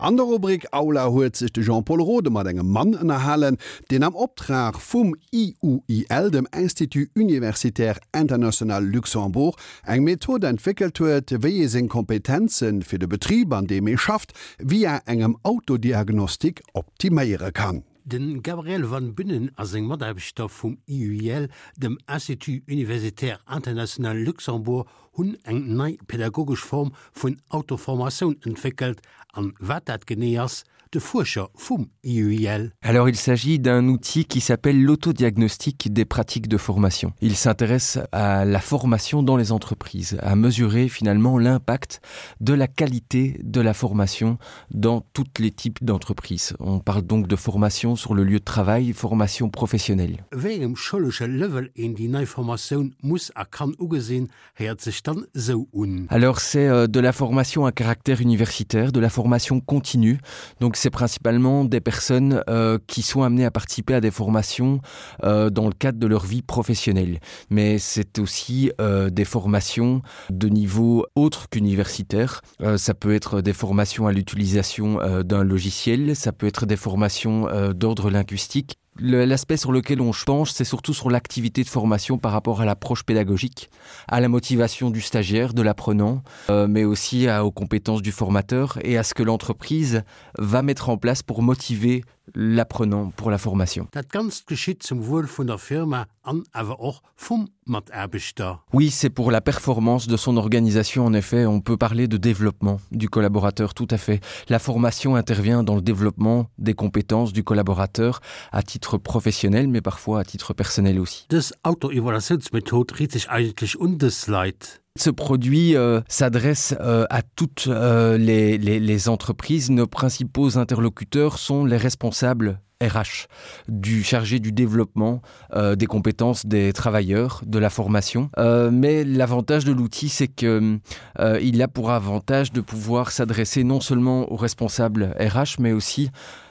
An der Rubrik Aula huet sech de Jean-Pol Rode mat engem Mann ënnerhalen, deen am Optrag vum IUIL, dem Institut Universitaire International Luxembourg, eng Method entwéckelt huet, wéi ee seng Kompetenze fir de Betrib, an deem ee schafft, via engem Autodiagnostic optiméiere kann. De Gabriel Van Bünnen a seng Mataarbechter vum IUIL, dem Institut Universitaire International Luxembourg, hunn eng nei pädagogesch Form vun Autoformatioun entwéckelt. An wat dat genee ass, de Fuerscher vum IUIL. Alors il s'agit d'un outil qui s'appelle l'autodiagnostic des pratiques de formation. Il s'intéresse à la formation dans les entreprises, à mesurer finalement l'impact de la qualité de la formation dans toutes les types d'entreprises. On parle donc de formation sur le lieu de travail, formation professionnelle. Wéi engem schoulesche Level een déi nei Formatioun muss a kann ugesinn, héiert sech dann esou un. Alors c'est euh, de la formation à caractère universitaire, de la formation continue. Donc c'est principalement des personnes euh, qui sont amenées à participer à des formations euh, dans le cadre de leur vie professionnelle. Mais c'est aussi euh, des formations de niveau autre qu'universitaire. Euh, ça peut être des formations à l'utilisation euh, d'un logiciel, ça peut être des formations euh, d'ordre linguistique. L'aspect sur lequel on penche, c'est surtout sur l'activité de formation par rapport à l'approche pédagogique, à la motivation du stagiaire, de l'apprenant, euh, mais aussi à, aux compétences du formateur et à ce que l'entreprise va mettre en place pour motiver l'apprenant pour la formation. Dat Ganzt geschitt zum Wuel vun der Firma an awer och vum Mataarbechter. Oui, c'est pour la performance de son organisation en effet, on peut parler de développement du collaborateur tout à fait. La formation intervient dans le développement des compétences du collaborateur à titre professionnel mais parfois à titre personnel aussi. Dës Autoevaluatiounsmethod riit sech eigentlech un dës Leit. Ce produit euh, s'adresse euh, à toutes euh, les, les, les entreprises. Nos principaux interlocuteurs sont les responsables RH du chargé du développement euh, des compétences des travailleurs de la formation euh, mais l'avantage de l'outil c'est que euh, il a pour avantage de pouvoir s'adresser non seulement aux responsables RH mais aussi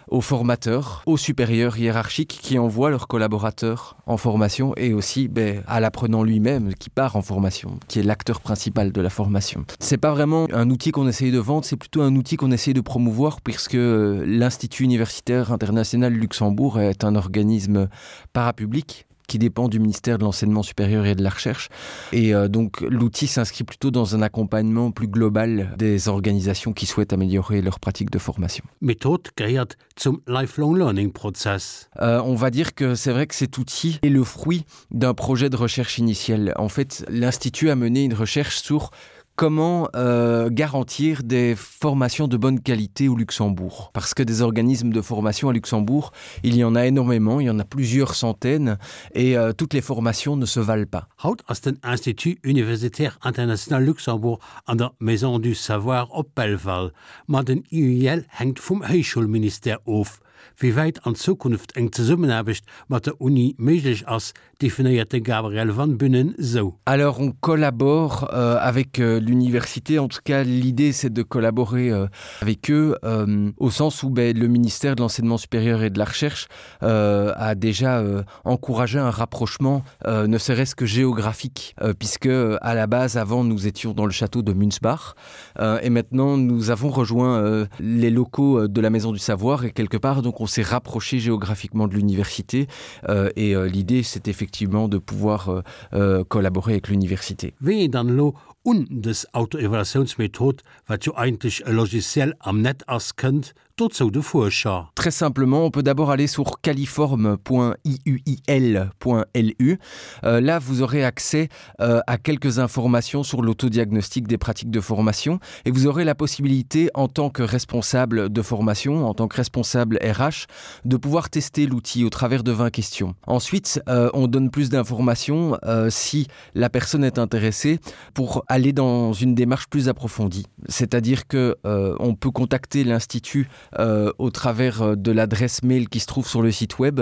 aux formateurs, aux supérieurs hiérarchiques qui envoient leurs collaborateurs en formation et aussi ben, à l'apprenant lui-même qui part en formation, qui est l'acteur principal de la formation. C'est pas vraiment un outil qu'on essaye de vendre, c'est plutôt un outil qu'on essaye de promouvoir puisque euh, l'Institut universitaire international Luxembourg est un organisme parapublic qui dépend du ministère de l'enseignement supérieur et de la recherche. Et euh, donc l'outil s'inscrit plutôt dans un accompagnement plus global des organisations qui souhaitent améliorer leurs pratiques de formation. Method gehéiert zum Lifelong Learning Prozess. Euh, on va dire que c'est vrai que cet outil est le fruit d'un projet de recherche initial. En fait, l'institut a mené une recherche sur comment euh, garantir des formations de bonne qualité au Luxembourg parce que des organismes de formation à Luxembourg il y en a énormément il y en a plusieurs centaines et euh, toutes les formations ne se valent pas Haut ass den Institut Universitaire International Luxembourg an der Maison du Savoir op Belval, ma den IUIL hänkt vum Héichschoulministère of. Wéi wäit an Zukunft eng Zesummenaarbecht mat der Uni méiglech ass, definéiert de Gabriel Van Bünnen sou. Alors on collabore euh, avec euh, l'université en tout cas l'idée c'est de collaborer euh, avec eux euh, au sens où ben, le ministère de l'enseignement supérieur et de la recherche euh, a déjà euh, encouragé un rapprochement euh, ne serait-ce que géographique euh, puisque euh, à la base avant nous étions dans le château de Munzbach euh, et maintenant nous avons rejoint euh, les locaux euh, de la maison du savoir et quelque part donc on s'est rapproché géographiquement de l'université euh, et euh, l'idée c'est effectivement de pouvoir euh, euh, collaborer avec l'université. Wéi een dann elo un dës Autoevaluatiounsmethod, wat jo eigentlech e Logiciel am Net ass, kënnt, dozou de Fuerscher. Très simplement, on peut d'abord aller sur califorme.iuil.lu. Euh, là, vous aurez accès euh, à quelques informations sur l'autodiagnostic des pratiques de formation et vous aurez la possibilité en tant que responsable de formation, en tant que responsable RH, de pouvoir tester l'outil au travers de 20 questions. Ensuite, euh, on donne plus d'informations euh, si la personne est intéressée pour aller dans une démarche plus approfondie. C'est-à-dire que euh, on peut contacter l'institut euh, au travers euh, de l'adresse mail qui se trouve sur le site web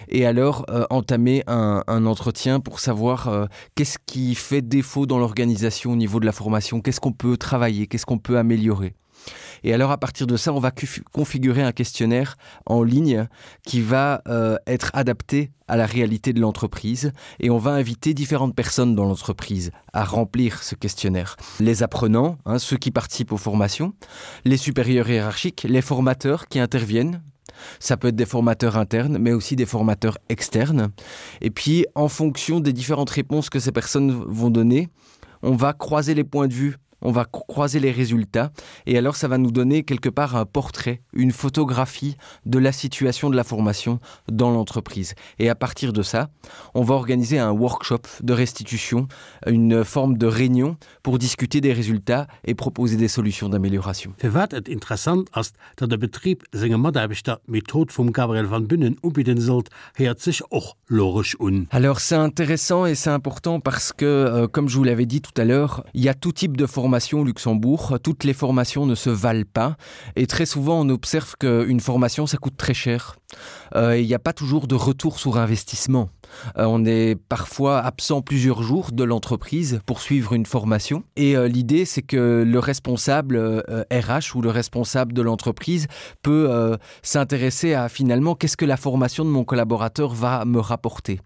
et alors euh, entamer un, un entretien pour savoir euh, qu'est-ce qui fait défaut dans l'organisation au niveau de la formation, qu'est-ce qu'on peut travailler, qu'est-ce qu'on peut améliorer. Et alors à partir de ça, on va configurer un questionnaire en ligne qui va euh, être adapté à la réalité de l'entreprise et on va inviter différentes personnes dans l'entreprise à remplir ce questionnaire. Les apprenants, hein, ceux qui participent aux formations, les supérieurs hiérarchiques, les formateurs qui interviennent Ça peut être des formateurs internes, mais aussi des formateurs externes. Et puis, en fonction des différentes réponses que ces personnes vont donner, on va croiser les points de vue on va croiser les résultats et alors ça va nous donner quelque part un portrait, une photographie de la situation de la formation dans l'entreprise. Et à partir de ça, on va organiser un workshop de restitution, une forme de réunion pour discuter des résultats et proposer des solutions d'amélioration. Firwat et interessant ass, datt e Betrib senge Mataarbechter d'Method vum Gabriel van Bünnen ubidden sollt, héiert sech och logesch un. Alors c'est intéressant et c'est important parce que, euh, comme je vous l'avais dit tout à l'heure, il y a tout type de formation au Luxembourg, toutes les formations ne se valent pas et très souvent on observe qu'une formation ça coûte très cher. Euh, il n'y a pas toujours de retour sur investissement. Euh, on est parfois absent plusieurs jours de l'entreprise pour suivre une formation et euh, l'idée c'est que le responsable euh, RH ou le responsable de l'entreprise peut euh, s'intéresser à finalement qu'est-ce que la formation de mon collaborateur va me rapporter.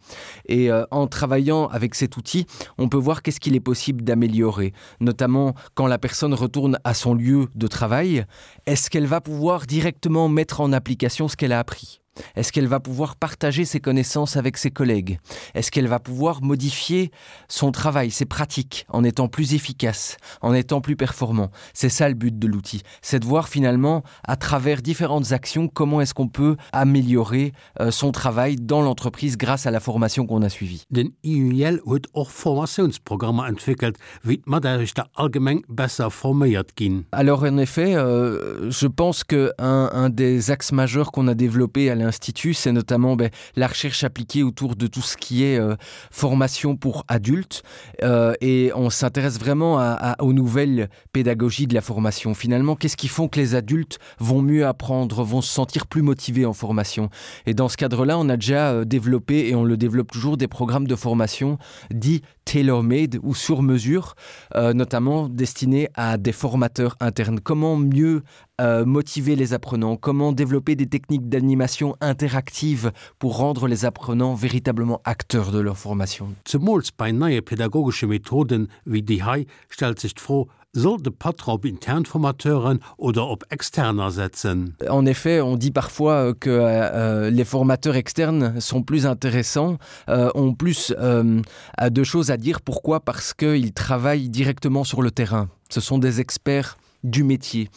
Et euh, en travaillant avec cet outil, on peut voir qu'est-ce qu'il est possible d'améliorer, notamment quand la personne retourne à son lieu de travail, est-ce qu'elle va pouvoir directement mettre en application ce qu'elle a appris? Est-ce qu'elle va pouvoir partager ses connaissances avec ses collègues? Est-ce qu'elle va pouvoir modifier son travail, ses pratiques en étant plus efficace, en étant plus performant? C'est ça le but de l'outil, c'est de voir finalement à travers différentes actions comment est-ce qu'on peut améliorer euh, son travail dans l'entreprise grâce à la formation qu'on a suivie. Den IUL huet och Formatiounsprogrammer entwéckelt, wéi d'Mataarbechter allgemeng besser forméiert ginn. Alors en effet, euh, je pense que un, un des axes majeurs qu'on a développé à l'institut, c'est notamment ben, la recherche appliquée autour de tout ce qui est euh, formation pour adultes euh, et on s'intéresse vraiment à, à, aux nouvelles pédagogies de la formation. Finalement, qu'est-ce qui font que les adultes vont mieux apprendre, vont se sentir plus motivés en formation Et dans ce cadre-là, on a déjà euh, développé et on le développe toujours des programmes de formation dits tailor-made ou sur mesure, euh, notamment destinés à des formateurs internes. Comment mieux euh, motiver les apprenants, comment développer des techniques d'animation interactive pour rendre les apprenants véritablement acteurs de leur formation. Zemools bei neie pädagogesche Methoden wéi déi hei stellt sech d'Fro, Soll de Patron op intern Formateuren oder op externer setzen? En effet, on dit parfois euh, que euh, les formateurs externes sont plus intéressants, euh, ont plus euh, de choses à dire. Pourquoi Parce qu'ils travaillent directement sur le terrain. Ce sont des experts du métier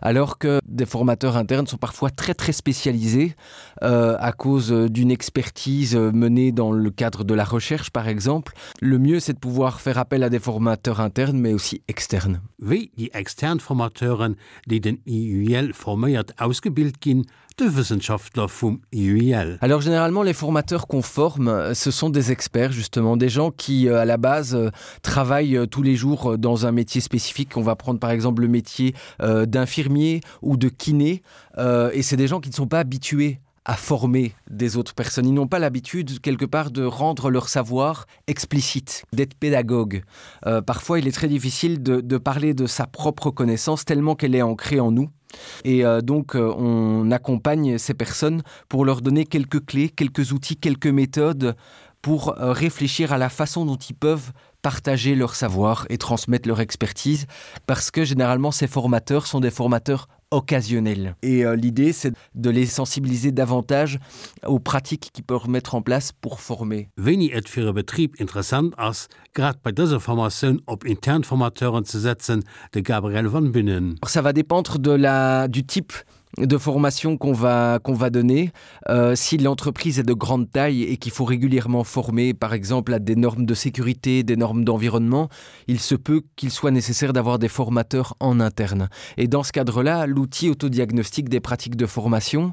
alors que des formateurs internes sont parfois très très spécialisés euh, à cause d'une expertise menée dans le cadre de la recherche par exemple le mieux c'est de pouvoir faire appel à des formateurs internes mais aussi externes Wéi déi extern Formateuren, déi den IUL forméiert, ausgebilt ginn, de Wëssenschaftler vum IUL. Alors généralement les formateurs qu'on forme, ce sont des experts justement, des gens qui euh, à la base euh, travaillent euh, tous les jours dans un métier spécifique. On va prendre par exemple le métier d'infirmier ou de kiné et c'est des gens qui ne sont pas habitués à former des autres personnes. Ils n'ont pas l'habitude quelque part de rendre leur savoir explicite, d'être pédagogue. Euh, parfois il est très difficile de, de parler de sa propre connaissance tellement qu'elle est ancrée en nous. Et euh, donc euh, on accompagne ces personnes pour leur donner quelques clés, quelques outils, quelques méthodes pour euh, réfléchir à la façon dont ils peuvent partager leur savoir et transmettre leur expertise parce que généralement ces formateurs sont des formateurs occasionnels. Et euh, l'idée c'est de les sensibiliser davantage aux pratiques qu'ils peuvent mettre en place pour former. Wéini et fir e Betrib interessant ass, grad bei dëser Formatioun op intern Formateuren ze setzen, de Gabriel Van Bünnen. Ça va dépendre de la, du type de formation qu'on va, qu'on va donner. Euh, si l'entreprise est de grande taille et qu'il faut régulièrement former, par exemple, à des normes de sécurité, des normes d'environnement, il se peut qu'il soit nécessaire d'avoir des formateurs en interne. Et dans ce cadre-là, l'outil autodiagnostique des pratiques de formation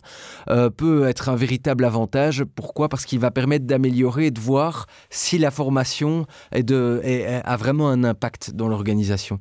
euh, peut être un véritable avantage. Pourquoi Parce qu'il va permettre d'améliorer et de voir si la formation est de, est, a vraiment un impact dans l'organisation.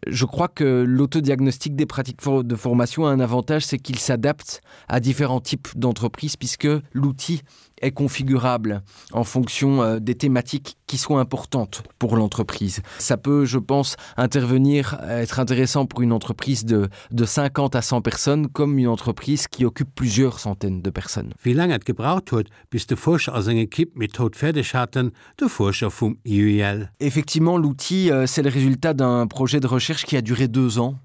Je crois que l'autodiagnostic des pratiques de formation a un avantage, c'est qu'il s'adapte à différents types d'entreprises puisque l'outil est configurable en fonction euh, des thématiques qui sont importantes pour l'entreprise. Ça peut, je pense, intervenir, être intéressant pour une entreprise de, de 50 à 100 personnes comme une entreprise qui occupe plusieurs centaines de personnes. Wéi laang et gebraucht huet, bis de Fuerscher a seng Ekipp d'Method fäerdeg haten, de Fuerscher vum IUIL. Effectivement, l'outil, euh, c'est le résultat d'un projet de recherche qui a duré deux ans.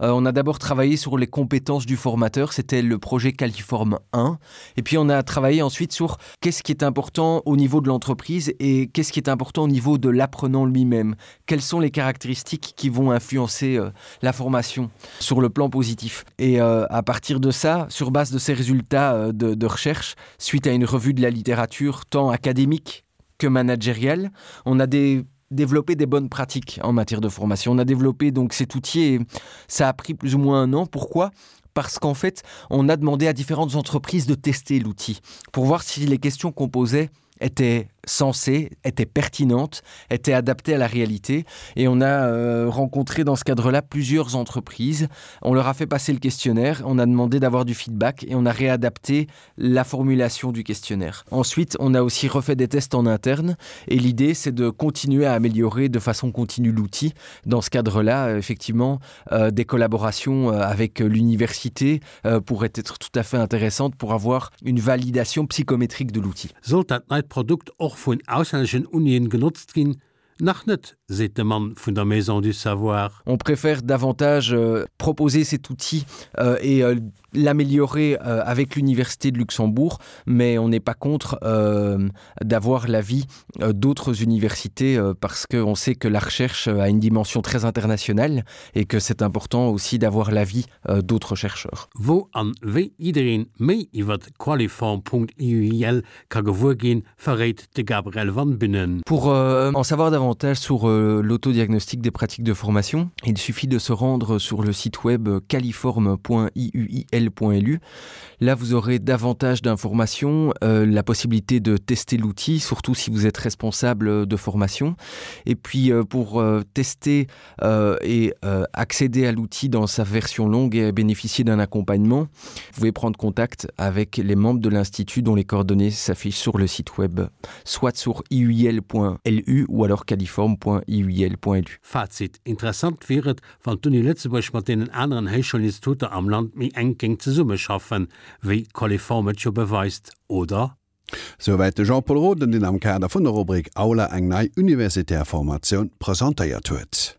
Euh, on a d'abord travaillé sur les compétences du formateur, c'était le projet Califorme 1. Et puis on a travaillé ensuite sur qu'est-ce qui est important au niveau de l'entreprise et qu'est-ce qui est important au niveau de l'apprenant lui-même. Quelles sont les caractéristiques qui vont influencer euh, la formation sur le plan positif. Et euh, à partir de ça, sur base de ces résultats euh, de, de recherche, suite à une revue de la littérature tant académique que managériale, on a des développer des bonnes pratiques en matière de formation. On a développé donc cet outil et ça a pris plus ou moins un an. Pourquoi Parce qu'en fait, on a demandé à différentes entreprises de tester l'outil pour voir si les questions qu'on posait étaient sensée, était pertinente, était adaptée à la réalité et on a euh, rencontré dans ce cadre-là plusieurs entreprises. On leur a fait passer le questionnaire, on a demandé d'avoir du feedback et on a réadapté la formulation du questionnaire. Ensuite, on a aussi refait des tests en interne et l'idée c'est de continuer à améliorer de façon continue l'outil. Dans ce cadre-là, effectivement, euh, des collaborations euh, avec l'université euh, pourraient être tout à fait intéressantes pour avoir une validation psychométrique de l'outil. Sollt dat neit Produkt och vun auslänneschen Unien genotzt ginn? Nach net, seet de Mann vun der Maison du Savoir. On préfère davantage euh, proposer cet outil euh, et euh, l'améliorer euh, avec l'université de Luxembourg, mais on n'est pas contre euh, d'avoir l'avis euh, d'autres universités euh, parce qu'on sait que la recherche euh, a une dimension très internationale et que c'est important aussi d'avoir l'avis euh, d'autres chercheurs. Wou an wéi jiddereen méi iwwert Qualiform.iuil ka gewuer ginn, verréit de Gabriel Van Bünnen. Pour euh, en savoir davantage sur euh, l'autodiagnostic des pratiques de formation, il suffit de se rendre sur le site web califorme.iuil.lu. Là, vous aurez davantage d'informations, euh, la possibilité de tester l'outil, surtout si vous êtes responsable de formation. Et puis euh, pour euh, tester euh, et euh, accéder à l'outil dans sa version longue et bénéficier d'un accompagnement, vous pouvez prendre contact avec les membres de l'institut dont les coordonnées s'affichent sur le site web, soit sur iuil.lu ou alors califorme.iuil.lu. Fazit, Interessant wier et, wann d'Uni Lëtzebuerg mat deenen aneren Héichschoulinstituter am Land méi enk géing zesummeschaffen, wéi Qualiform et jo beweist, oder? Souwäit de Jean-Pol Roden, deen am Kader vun der Rubrik Aula eng nei universitär Formatioun presentéiert huet.